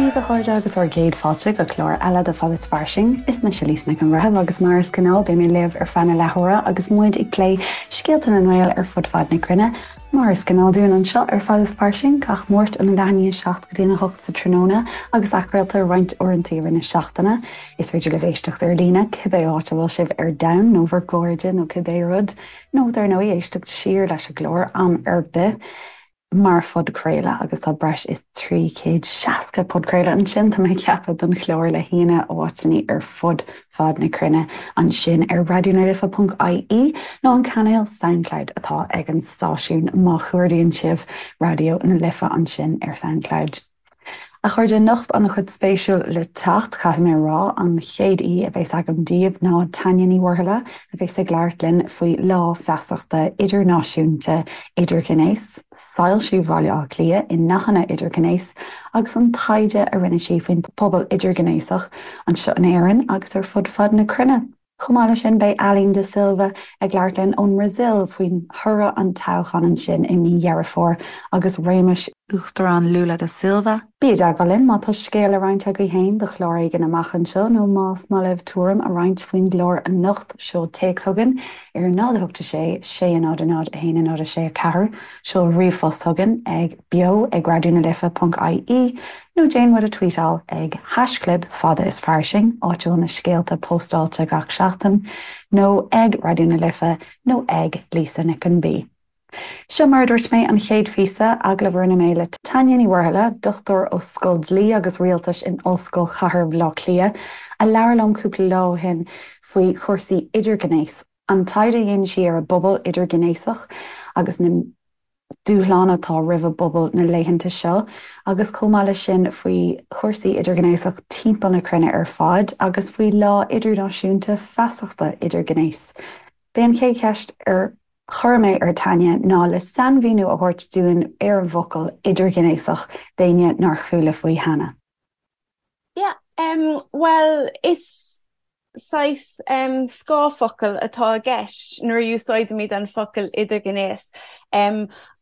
daoibh a chairde agus bhur gcéad fáilte go clár eile de Fad is Fairsing. Is mise Lisa Nic an Bhreithimh agus mar is gnáth beidh mé libh ar feadh na leathuaire agus muid ag plé scéalta na nGael ar fud fad na cruinne. Mar is gnáth dúinn anseo ar Fad is Fairsing, gach Máirt óna leath i ndiaidh 7 go dtí a 8 sa tráthnóna agus athchraolta roinnt uaireanta i rith na seachtaine. Is féidir libh éisteacht ar líne cibé áit a bhfuil sibh ar domhan nó bhur gcairde nó cibé rud, nó dar ndóigh éisteacht siar leis an gclár am ar bith mar phodchraoladh agus tá breis is 360 podchraoladh ansin, tá mé ag ceapadh, don chlár le haíonna ó áiteanna ar fud fad na cruinne ansin ar raidionalife.ie nó an cainéal Soundcloud atá ag an stáisiún má chuardaíonn sibh Raidió na Life ansin ar Soundcloud. A chairde, anocht an-chuid spéisiúil le teacht, caithfidh mé a rá. An chéad aoi a bheas agam daoibh ná Tanya Ní Mhuirthile, a bheas ag labhairt linn faoi Lá Feasachta Idirnáisiúnta Idirghnéas, soilsiú Bhaile Átha Cliath i ndathanna idirghnéas agus an taighde a rinne sí faoin bpobal idirghnéasach anseo in Éirinn agus ar fud fad na cruinne. Chomh maith leis sin, beidh Aline da Silva ag labhairt linn ón mBrasaíl faoi thoradh an toghcháin ansin i mí Dheireadh Fómhair agus réimeas Uachtarán Lula da Silva. Bí i dteagmháil linn má tá scéal le roinnt agaibh féin do chlár éigin amach anseo nó más maith libh tuairim a roinnt faoin gclár anocht, seol téacs chugainn ar 0 8 6 6 0 0 1 0 6 4, seol ríomhphost chugainn ag beo ag raidionalife.ie Nó déan muid a tweetáil ag haischlib fada is fairsing, áit a bhfuil na scéalta póstáilte gach seachtain, nó ag Raidió na Life nó ag Lisa Nic an B. Seo mar a dúirt mé, an chéad phíosa, agallamh a rinne mé le Tanya Ní Mhuirthile, dochtúir ó Scoil Dlí agus Rialtais in Ollscoil Chathair Bhaile Átha Cliath, a labhair liom cúpla lá ó shin faoi chúrsaí idirghnéis, an taighde a dhéanann sí ar an bpobal idirghnéasach agus na. dúshláin atá roimh an bpobal na laethanta seo agus chomh maith leis sin faoi chúrsaí idirghnéasach timpeall na cruinne ar fad agus faoi Lá Idirnáisiúnta Feasachta Idirghnéis. B'é an chéad cheist ar chuir mé ar Tanya ná le sainmhíniú a thabhairt dúinn ar an bhfocal idirghnéasach d'éinne nár chuala faoi cheana. Yeah, bhuel is saghas scáthfhocal atá i gceist nuair a úsáidimid an focal idirghnéas.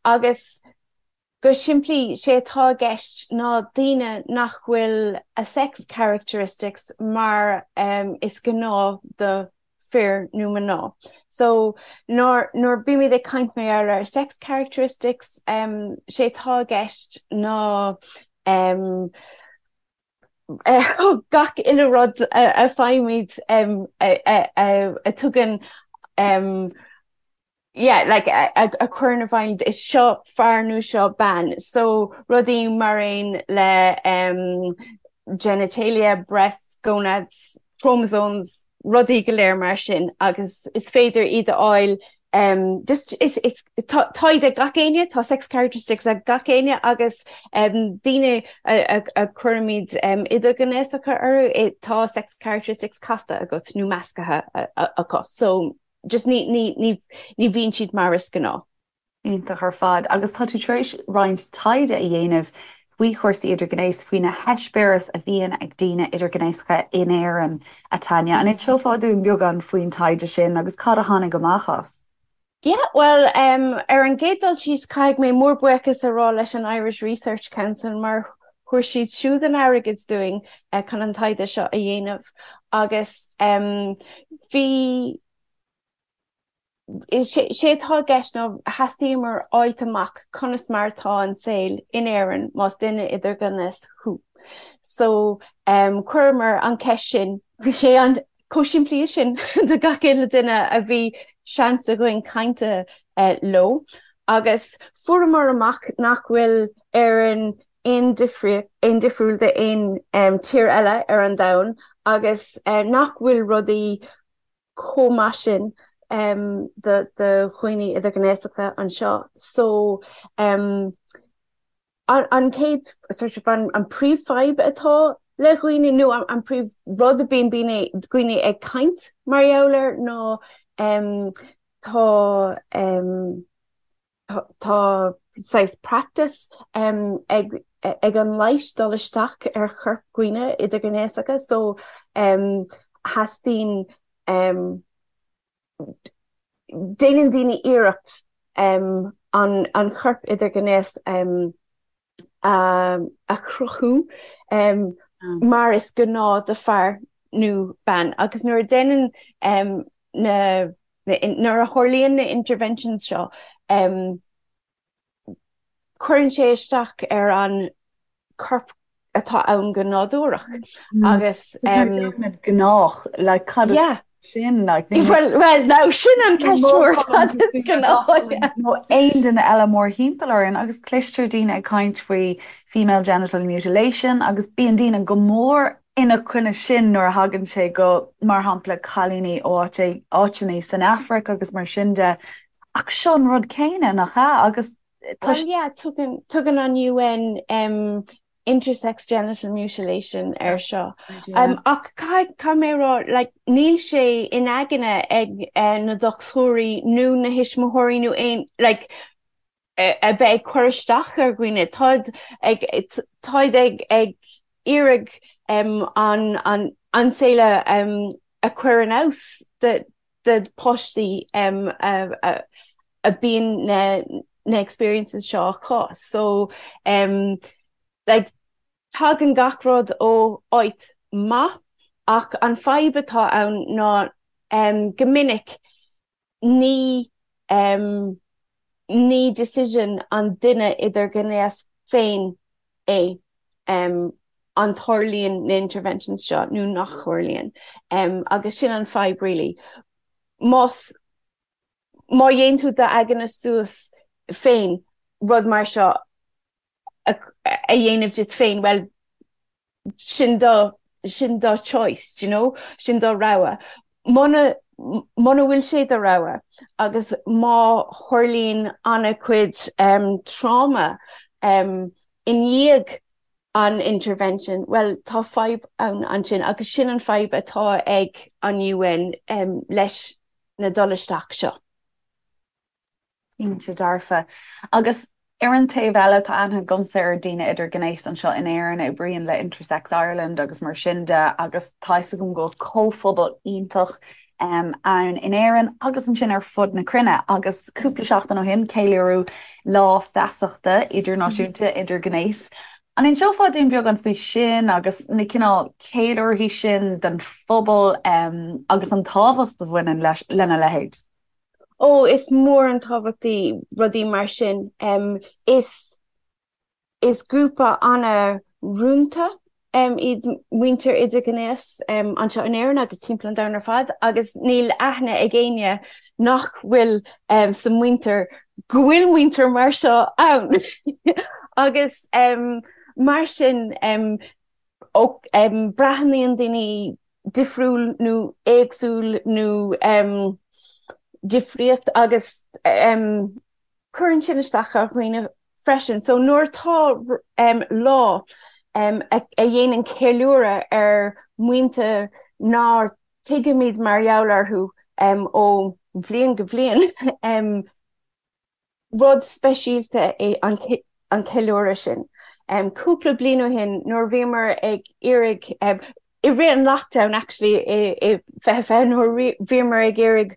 Agus go simplí, sé atá i gceist ná daoine nach bhfuil a sex characteristics mar is gnáth do fir nó mná. So nuair nuair bímid ag caint mar gheall ar sex characteristics, sé atá i gceist ná gach uile rud a faighimid a tugann yeah like a chuireann i bhfeidhm is seo fear nó seo bean. So rudaí mar aon le genitalia, breasts, gonads, chromosomes, rudaí go léir mar sin agus is féidir iad a fháil just is is tá iad ag gach éinne, tá sex characteristics ag gach éinne agus daoine a a cuirimid idirghnéasacha orthu, tá sex characteristics casta agat nó measctha acu. So just ní ní ní ní bhíonn siad mar is gnáth. Iontach ar fad. Agus tá tú tar éis roinnt taighde a dhéanamh faoi chúrsaí idirghnéis, faoi na heispéiris a bhíonn ag daoine idirghnéasacha in Éirinn, a Tanya. An inseofá dúinn beagán faoin taighde sin agus cad a tháinig amach as? Yeah, bhuel, ar an gcéad dul síos, caithfidh mé mór buíochas a rá leis an Irish Research Council mar thuir siad siúd an airgead dúinn chun an taighde seo a dhéanamh agus bhí Sé atá i gceist ná theastaíomar fháilt amach conas mar atá an saol in Éirinn más duine idirghnéas thú. So chuireamar an cheist sin, bhí sé an chomh simplí sin do gach uile duine a bhí seans againn caint leo agus fuaireamar amach nach bhfuil Éirinn aon aon difriúil d'aon tír eile ar an domhan agus nach bhfuil rudaí chomh maith sin do dhaoine idirghnéasacha anseo. So an chéad sort of an príomhfhadhb atá le dhaoine nó an príomh rud a bíonn daoine ag caint mar gheall air ná tá Tá saghas practice ag ag an leighis dul isteach ar chorp dhaoine idirghnéasacha so theastaíonn déanann daoine iarracht an an chorp idirghnéas. a chruthú mar is gnáth do fear nó bean agus nuair a déanann na nuair a tharlaíonn na interventions seo cuireann sé isteach ar an corp atá ann go nádúrach agus. Gnách, like cad is sin like Well well now sin an ceist mhór cad is gnách. Nó aon duine eile mórthimpeall orainn agus cloistear daoine ag caint faoi female genital mutilation agus bíonn daoine go mór ina choinne sin nuair a thagann sé go, mar shampla, cailíní ó áiteanna san Afraic agus mar sin de. Ach seo an rud céanna, nach ea? Agus tá. Well yeah, tugann, tugann an UN um, intersex genital mutilation air seo. Um, ach caithfidh, caithfidh mé a rá, like, níl sé in aigne ag uh, na dochtúirí nó na thuismitheoirí nó aon, like, a bheith ag cur isteach ar dhaoine. Táid ag, táid ag, ag iarraidh um, an, an, an saol a, um, a chur in fheabhas do, do páistí um, a, a, a bíonn na, na experiences seo acu. So, um, like, tagann gach rud ó áit maith ach an fadhb atá ann ná um, go minic ní ní decision an duine idirghnéas féin é an tarlaíonn na interventions seo nó nach dtarlaíonn agus sin an fadhb really. Más má dhéanann tú d'aigne suas féin rud mar seo a dhéanamh duit féin, bhuel, sin do, sin do choice, do you know, sin do rogha. Muna, muna bhfuil sé do rogha agus má tharlaíonn an-chuid um, trauma um, i ndiaidh an intervention, bhuel, tá fadhb ann ansin agus sin an fadhb atá ag an UN um, leis na dul isteach seo. Cinnte dearfa. Agus ar an taobh eile, tá aithne agamsa ar daoine idirghnéas anseo in Éirinn a oibríonn le Intersex Ireland agus mar sin de agus tá fhios agam go bhfuil comhphobal iontach ann in Éirinn agus ansin ar fud na cruinne. Agus cúpla seachtain ó shin, ceiliúradh Lá Feasachta Idirnáisiúnta Idirghnéas. An inseofá dúinn beagán faoi sin agus na cineál ceiliúrthaí sin don phobal agus an tábhacht a bhaineann leis lena leithéid? Ó, is mór an tábhacht í rudaí mar sin. Is is grúpa an-rúnda iad muintir idirghnéas anseo in Éirinn agus timpeall an domhain ar fad agus níl aithne ag éinne nach bhfuil sa muintir go bhfuil muintir mar seo ann. Agus mar sin breathnaíonn daoine difriúil nó éagsúil nó difríocht agus cuireann sin isteach ar dhaoine freisin. So nuair atá lá a dhéanann ceiliúradh ar mhuintir nár tuigimid mar gheall orthu ó bhliain go bliain, Rud speisialta é an ceiliúradh sin. Cúpla bliain ó shin nuair a bhíomar ag iarraidh, i rith an lockdown actually i 2020 nuair a bhíomar ag iarraidh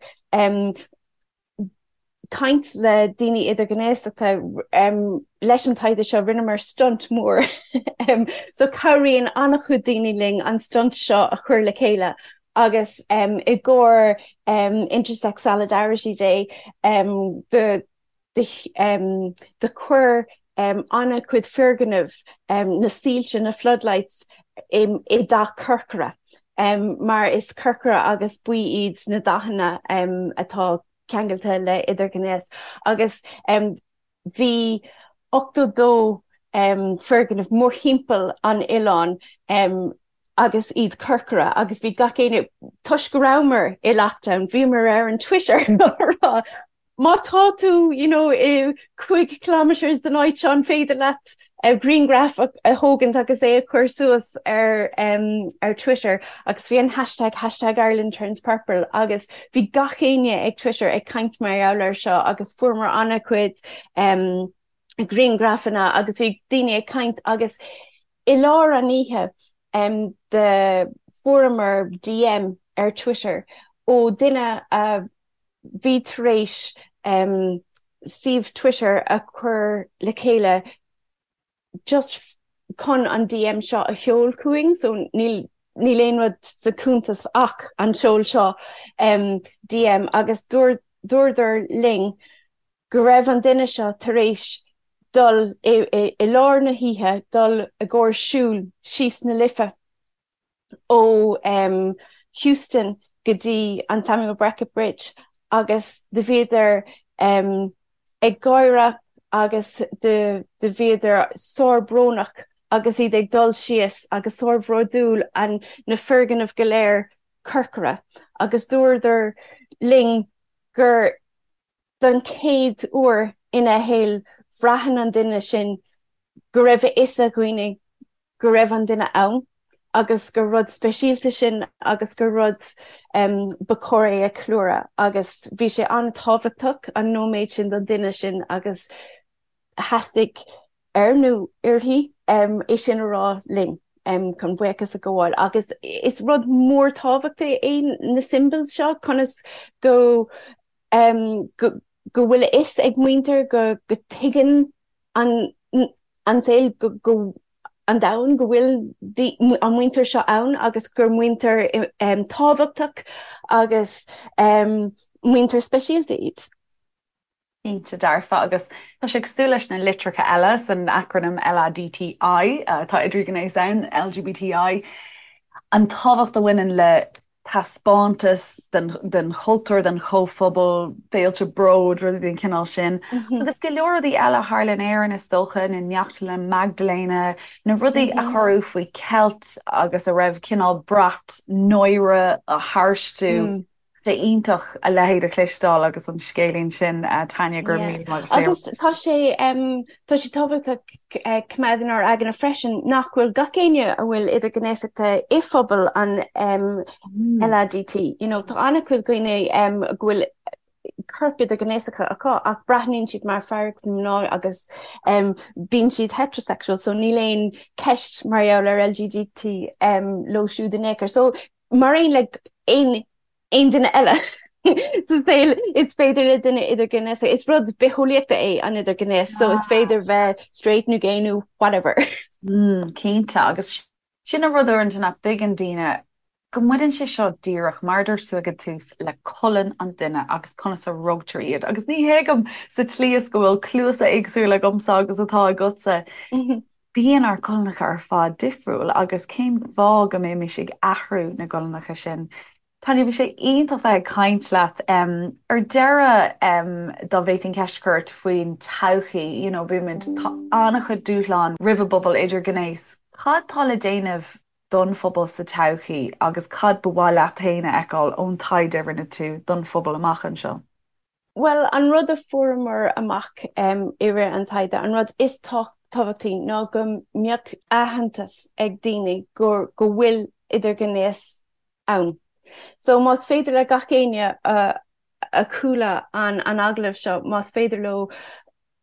caint le daoine idirghnéasachta leis an taighde seo rinneamar stunt mór. So cabhraíonn an-chuid daoine linn an stunt seo a chur le chéile agus i gcomhair Intersex Solidarity Day do do chuir an-chuid foirgneamh na soilse, na floodlights, i dath corcra mar is corcra agus buí iad na dathanna atá ceangailte le idirghnéas agus bhí 82 foirgneamh mórthimpeall an oileáin agus iad corcra agus bhí gach éinne, toisc go rabhamar i lockdown, bhíomar ar an Twitter á rá má tá tú you know i 5 kilometres den áit seo an féidir leat grianghraf a thógaint agus é a chur suas ar ar Twitter agus bhí an hashtag hashtag Ireland turns purple agus bhí gach éinne ag Twitter ag caint mar gheall air seo agus fuaireamar an-chuid um, grianghrafanna agus bhí daoine ag caint agus i lár an oíche um, do fuaireamar DM ar Twitter ó duine a bhí tar éis um, suíomh Twitter a chur le chéile. Just chun an DM seo a sheol chugainn so níl níl aon rud sa cuntas ach an seol seo DM agus dúradar linn go raibh an duine seo tar éis dul i i lár na hoíche dul i gcomhair siúl síos na Life. ó Houston go dtí an Samuel Beckett Bridge agus do bhíodar ag gáire agus do bhíodar sár-bhrónach agus iad ag dul síos agus sár-bhródúil an na foirgnimh go léir corcra agus dúradar linn gur don chéad uair ina shaol bhraitheann an duine sin go raibh a fhios ag dhaoine go raibh an duine ann agus gur rud speisialta sin agus gur rud ba chóir é a cheiliúradh agus bhí sé an-tábhachtach an nóiméad sin don duine sin agus theastaigh air nó uirthi é sin a rá linn chun buíochas a ghabháil agus is rud mór tábhachtach é na symbols seo conas go go bhfuil a fhios ag muintir go go tuigeann an an saol go go an domhan go bhfuil an muintir seo ann agus gur muintir tábhachtach agus muintir speisialta iad. Cinnte dearfa, agus tá sé cosúil leis na litreacha eile san acrainm LADTI, atá idirghnéas ann, LGBTI, an tábhacht a bhaineann le taispeántas den chultúr, den chomhphobal, féilte bróid, rudaí den chineál sin. Agus go leor rudaí eile a tharla in Éirinn is dócha, na Neachtlanna Maigdiléana, na rudaí a cuireadh faoi cheilt agus a raibh cineál brat náire tharstu. Sé iontach a leithéid a chloisteáil agus an scéilín sin, Tanya, go raibh míle maith agat. Agus tá sé tá sé tábhachtach coimeád inár aigne freisin nach bhfuil gach éinne a bhfuil idirghnéasachta i phobal an LADT. You know, tá an-chuid daoine go bhfuil corp idirghnéasacha acu ach breathnaíonn siad mar fear agus mná agus bíonn siad heterosexual so níl aon ceist mar gheall ar LGDT leo siúd in aon chor. So mar aon le aon aon duine eile sa saol is féidir le duine idirghnéasach, is rud bitheolaíochta é an idirghnéas so is féidir bheith straight nó gay nó whatever. Mm, cinnte agus sin an rud uaireanta nach dtuigeann daoine go mbaineann sé seo díreach mar a dúirt tú ag an tús le colainn an duine agus conas a rugtar iad agus ní thuigim sa tslí is go bhfuil cluasa éagsúla agamsa agus atá agatsa. Bíonn ár gcolainneacha ar fad difriúil agus cén fáth go mbeimis ag athrú na gcolainneacha sin? Tanya, bhí sé iontach bheith ag caint leat. Ar deireadh, dá bhféadfainn ceist a chur ort faoin todhchaí, you know, bímid, tá an-chuid dúshlán roimh an bpobal idirghnéas. Cad tá le déanamh don phobal sa todhchaí agus cad ba mhaith leat féin a fheiceáil ón taighde a rinne tú don phobal amach anseo? Bhuel, an rud a fuaireamar amach i rith an taighde, an rud is tábhachtaí ná go mbeadh aitheantas ag daoine go go bhfuil idirghnéas ann. So más féidir le gach éinne a chuala an an agallamh seo, más féidir leo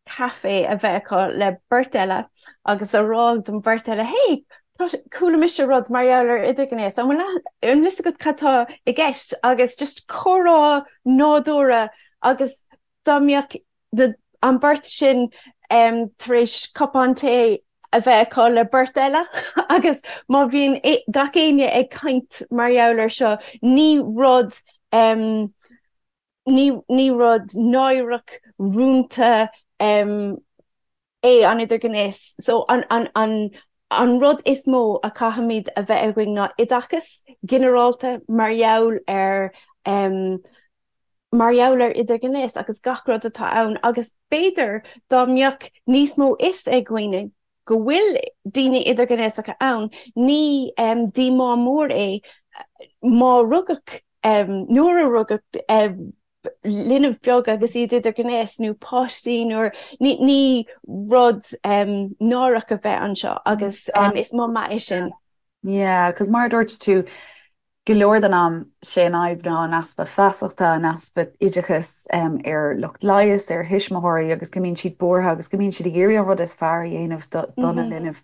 caife a bheith acu le beirt eile agus a rá don bheirt eile, Hey, chuala mise rud mar gheall ar idirghnéas, an bhfuil an bhfuil fhios agat cad tá i gceist? Agus just comhrá nádúrtha agus dá mbeadh an beirt sin tar éis cupán tae a bheith acu le beirt eile agus má bhíonn gach éinne ag caint mar gheall ar seo, ní rud Ní rud náireach, rúnta é an idirghnéas. So an rud is mó a chaithfimid a bheith againn ná oideachas ginearálta mar gheall ar mar gheall ar idirghnéas agus gach rud atá ann agus b'fhéidir dá mbeadh níos mó fhios ag dhaoine go bhfuil daoine idirghnéasacha ann, ní díomá mór é má rugadh nuair a rugadh linbh beag agus iad idirghnéas nó páistí nuair ní rud náireach a bheith anseo agus is moth maith é sin. Yeah, 'cause mar a dúirt tú, go leor den am, sé an fhadhb ná an easpa feasachta, an easpa oideachais ar lucht leighis, ar thuismitheoirí agus go mbíonn siad buartha agus go mbíonn siad ag iarraidh an rud is fearr a dhéanamh dona linbh.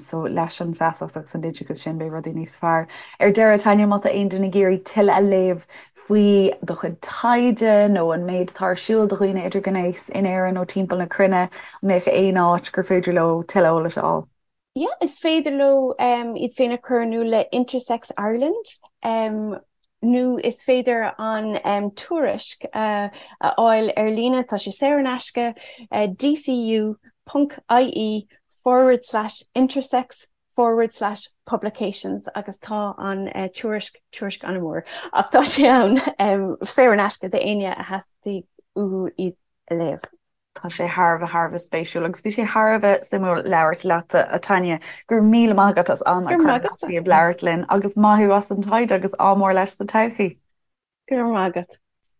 So leis an bhfeasacht agus an oideachas sin beidh rudaí níos fearr. Ar deireadh, Tanya, má tá aon duine ag iarraidh tuilleadh a léamh faoi do chuid taighde nó an méid atá ar siúl do dhaoine idirghnéas in Éirinn nó timpeall na cruinne, an mbeadh aon áit gur féidir leo tuilleadh eolais a fháil? Yeah, is féidir leo iad féin a chur in iúl le Intersex Ireland nó is féidir an tuairisc a fháil ar líne, tá sé saor in aisce, dcu ponc ie forward slash intersex forward slash publications agus tá an tuairisc, tuairisc an-mhór ach tá sé ann saor in aisce d'éinne a theastaigh uathu iad a léamh. Tá sé thar a bheith, thar a bheith spéisiúil agus bhí sé thar a bheith suimiúil labhairt leatsa, a Tanya. Go raibh míle maith agat as am a chur ar leataobh labhairt linn agus maith thú as an taighde agus ádh mór leis sa todhchaí. Go raibh maith agat.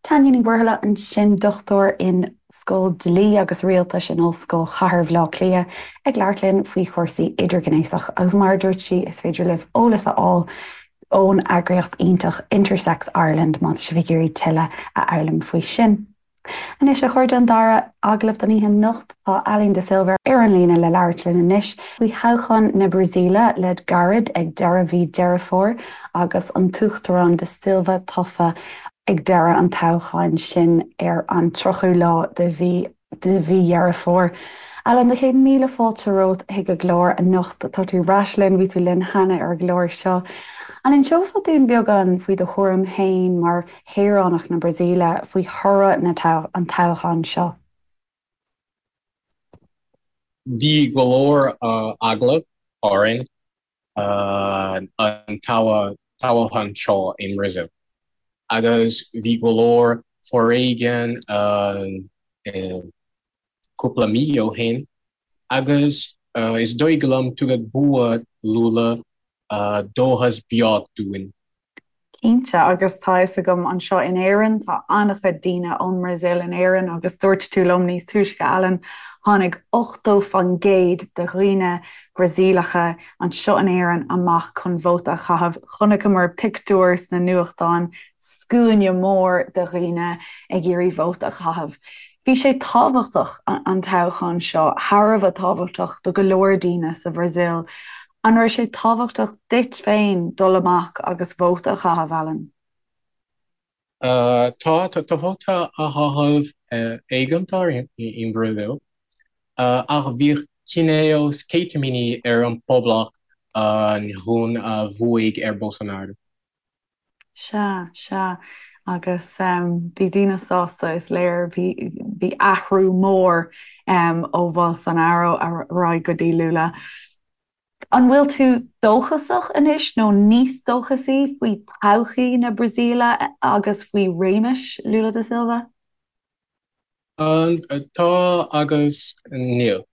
Tanya Ní Mhuirthile ansin, dochtúir in Scoil Dlí agus Rialtais in Ollscoil Chathair Bhaile Átha Cliath, ag labhairt linn faoi chúrsaí idirghnéasach agus mar a dúirt sí, is féidir libh eolas a fháil ón eagraíocht iontach Intersex Ireland má tá sibh ag iarraidh tuilleadh a fhoghlaim faoi sin. Anois, a chairde, an dara agallamh don oíche anocht, tá Aline da Silva ar an líne le labhairt linn anois faoi thoghchán na Brasaíle le gairid ag deireadh mhí Deireadh Fómhair agus an tUachtarán da Silva tofa ag deireadh an toghcháin sin ar an 30ú lá de mhí de mhí Dheireadh Fómhair. Aline, 100,000 fáilte romhat chuig an gclár anocht. Tá tú ar ais linn, bhí tú linn cheana ar an gclár seo. An inseofá dúinn beagán faoi do thuairim féin mar shaoránach na Brasaíle faoi thoradh na an toghcháin seo? Bhí go leor eagla orainn an toghchán seo i mBrasaíl agus bhí go leor foréigean cúpla mí ó shin agus is dóigh liom tugadh bua Lula dóchas beag dúinn. Cinnte, agus tá fhios agam anseo in Éirinn, tá an-chuid daoine ón mBrasaíl in Éirinn agus dúirt tú liom níos túisce, Alan, tháinig 80% de dhaoine Brasaíleacha anseo in Éirinn amach chun vóta a chaitheamh. Chonaiceamar pictiúir sna nuachtáin, scuaine mór de dhaoine ag iarraidh vóta a chaitheamh. Bhí sé tábhachtach, an toghchán seo, thar a bheith tábhachtach do go leor daoine sa Bhrasaíl. An raibh sé tábhachtach duit féin dul amach agus vóta a chaitheamh, Alan? Tá, tá vóta a chaitheamh éigeantach i mBrasaíl, ach bhí cineál sceitimíní ar an poblacht an chun a bhuaigh ar Bolsonaro. Sea, sea. Agus bhí daoine sásta, is léir. Bhí, bhí athrú mór ó Bholsonaro ar aghaidh go dtí Lula. An bhfuil tú dóchasach anois nó níos dóchasaí faoi todhchaí na Brasaíle agus faoi réimeas Lula da Silva? Tá agus níl.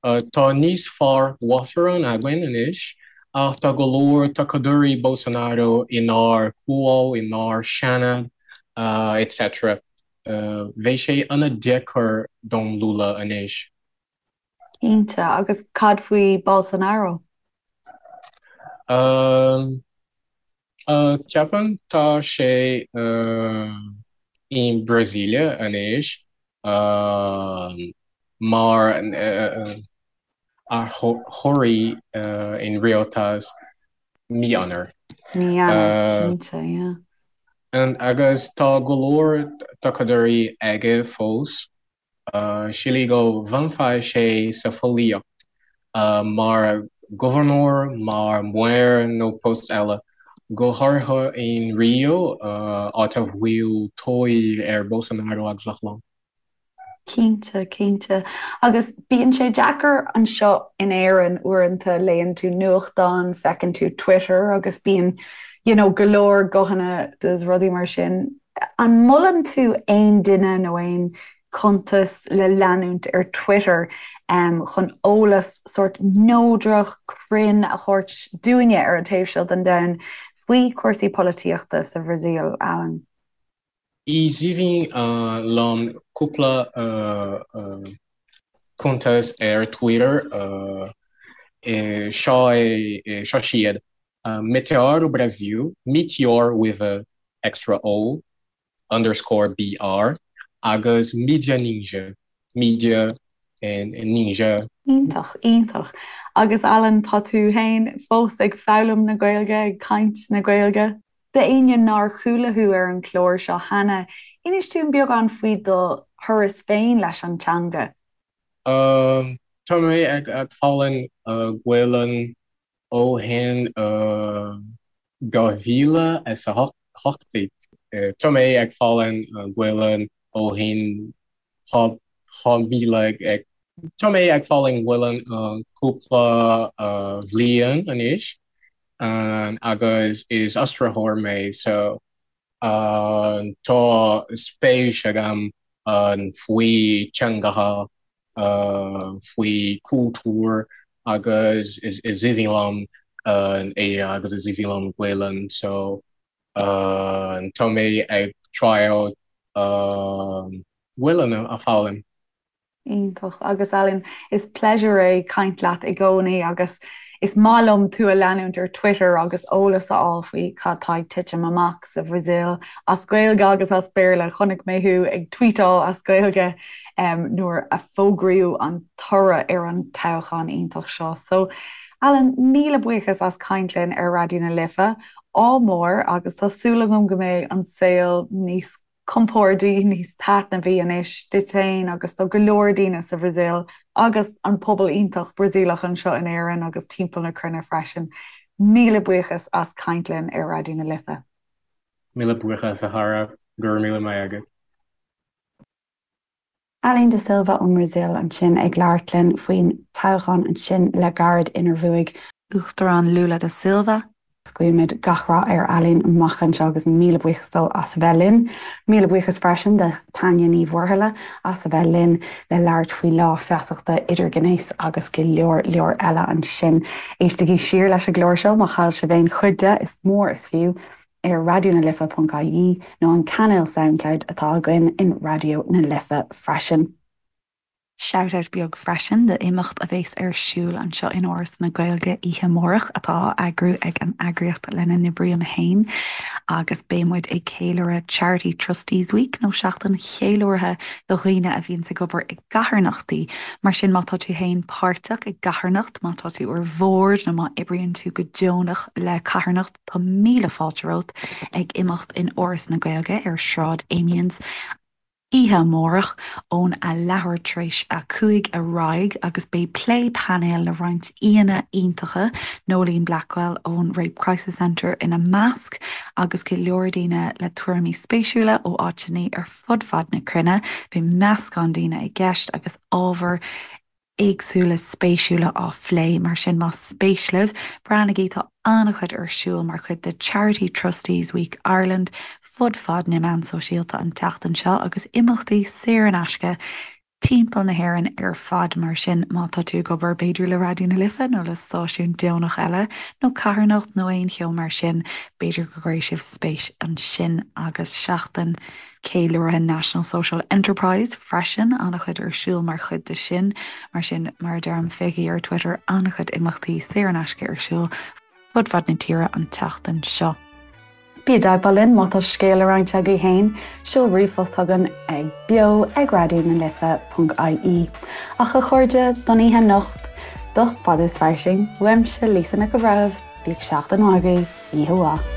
Tá níos fearr uachtarán againn anois ach tá go leor tacadóirí Bolsonaro inár Comhdháil, inár Seanad, etc. Bheidh sé an-deacair don Lula anois. Cinnte, agus cad faoi Bolsonaro? Ceapaim tá sé i mBrasília anois mar iarrthóirí in rialtas mí Eanáir. Mí Eanáir, cinnte, yeah. Agus tá go leor tacadóirí aige fós. Sílim go bhfanfaidh sé sa pholaitíocht mar ghobharnóir, mar mhaor nó post eile, go háirithe in Rio, áit a bhfuil tóir ar Bolsonaro agus a chlann. Cinnte, cinnte. Agus bíonn sé deacair anseo in Éirinn uaireanta, léann tú nuachtán, feiceann tú Twitter agus bíonn you know go leor guthanna is rudaí mar sin. An molann tú aon duine nó aon chuntas le leanúint ar Twitter chun eolas sórt neodrach, cruinn a thabhairt dúinne ar an taobh seo den domhan faoi chúrsaí polaitíochta sa Bhrasaíl, Alan? Is aoibhinn liom cúpla cuntas ar Twitter. Seo é, seo siad, Meteoro Brasil, Meteor with a extra O, underscore BR, agus Mídia Ninja, Media and Ninja. Iontach, iontach. Agus Alan, tá tú féin fós ag foghlaim na Gaeilge, ag caint na Gaeilge? D'éinne nár chuala thú ar an chlár seo cheana, inis dúinn beagán faoi do thuras féin leis an teanga. Tá mé ag foghlaim Gaelainn ó shin 2018. Tá mé ag foghlaim Gaelainn ó shin 2000 ag Tá mé ag foghlaim Gaelainn cúpla bhliain anois agus is aistritheoir mé so tá spéis agam faoi teangacha, faoi cultúr agus is aoibhinn liom é agus is aoibhinn liom Gaelainn so tá mé ag triail Gaelainn a foghlaim. Iontach. Agus Alan, is pléisiúr é caint leat i gcónaí agus is maith liom tú a leanúint ar Twitter agus eolas a fháil faoi cad tá ag titim amach sa Bhrasaíl, as Gaeilge agus as Béarla. Chonaic mé thú ag tweetáil as Gaeilge nuair a fógraíodh an toradh ar an toghchán iontach seo. So, Alan, míle buíochas as caint linn ar Raidió na Life. Ádh mór agus tá súil agam go mbeidh an saol níos compordaí, níos taitneamhaí anois duit féin agus do go leor daoine sa Bhrasaíl agus an pobal iontach Brasaíleach anseo in Éirinn agus timpeall na cruinne freisin. Míle buíochas as caint linn ar Raidió na Life. Míle buíochas a chara, go raibh míle maith agat. Alan da Silva ón mBrasaíl ansin ag labhairt linn faoin toghchán ansin le gairid inar bhuaigh. Uachtarán Lula da Silva. Guímid gach rath ar Alan amach anseo agus míle buíochas dó as a bheith linn. Míle buíochas freisin do Tanya Ní Mhuirthile as a bheith linn le labhairt faoi Lá Feasachta Idirghnéis agus go leor leor eile ansin. Éistigí siar leis an gclár seo má chaill sibh aon chuid de, is mór is fiú. ar raidionalife.ie nó an cainéal Soundcloud atá againn in Raidió na Life freisin. Shout-out beag freisin d'imeacht a bheas ar siúl anseo in Áras na Gaeilge oíche amárach atá á eagrú ag an eagraíocht lena n-oibrím féin agus beidh muid ag ceiliúradh Charity Trustees Week nó seachtain cheiliúrtha do dhaoine a bhíonns ag obair i gcarthanachtaí. Mar sin má tá tú féin páirteach i gcarthanacht, má tá tú ar bhord nó má oibríonn tú go deonach le carthanacht, Tá míle fáilte romhat ag imeacht in Áras na Gaeilge ar Sráid Amiens oíche amárach ón a leathuair tar éis a 5 ar aghaidh agus beidh plé painéil le roinnt aíonna iontacha, Noeline Blackwell ón Rape Crisis Centre ina measc agus go leor daoine le tuairimí spéisiúla ó áiteanna ar fud fad na cruinne. Beidh meascán daoine i gceist agus ábhar éagsúla spéisiúla á phlé, mar sin más spéis libh, breathnaigí, tá an-chuid ar siúl mar chuid de Charity Trustees Week Ireland fud fad na meán sóisialta an tseachtain seo agus imeachtaí saor in aisce timpeall na hÉireann ar fad, mar sin má tá tú ag obair b'fhéidir le Raidió na Life nó le stáisiún deonach eile nó carthanacht nó aon cheo mar sin, b'fhéidir go gcuirfidh sibh spéis ansin agus seachtain Ceiliúrtha National Social Enterprise freisin, an-chuid ar siúl mar chuid de sin. Mar sin, mar a deirim, féachaigí ar Twitter, an-chuid imeachtaí saor in aisce ar siúl fud fad na tíre an tseachtain seo. Bí i dteagmháil linn má tá scéal le roinnt agaibh féin, seol ríomhphost chugainn ag beo ag raidió na life ponc ie. Ach a chairde, don oíche anocht, do Fada is Fairsing, uaimse Lisa Nic an Bhreithimh, bíodh seachtain mhaith agaibh, oíche mhaith.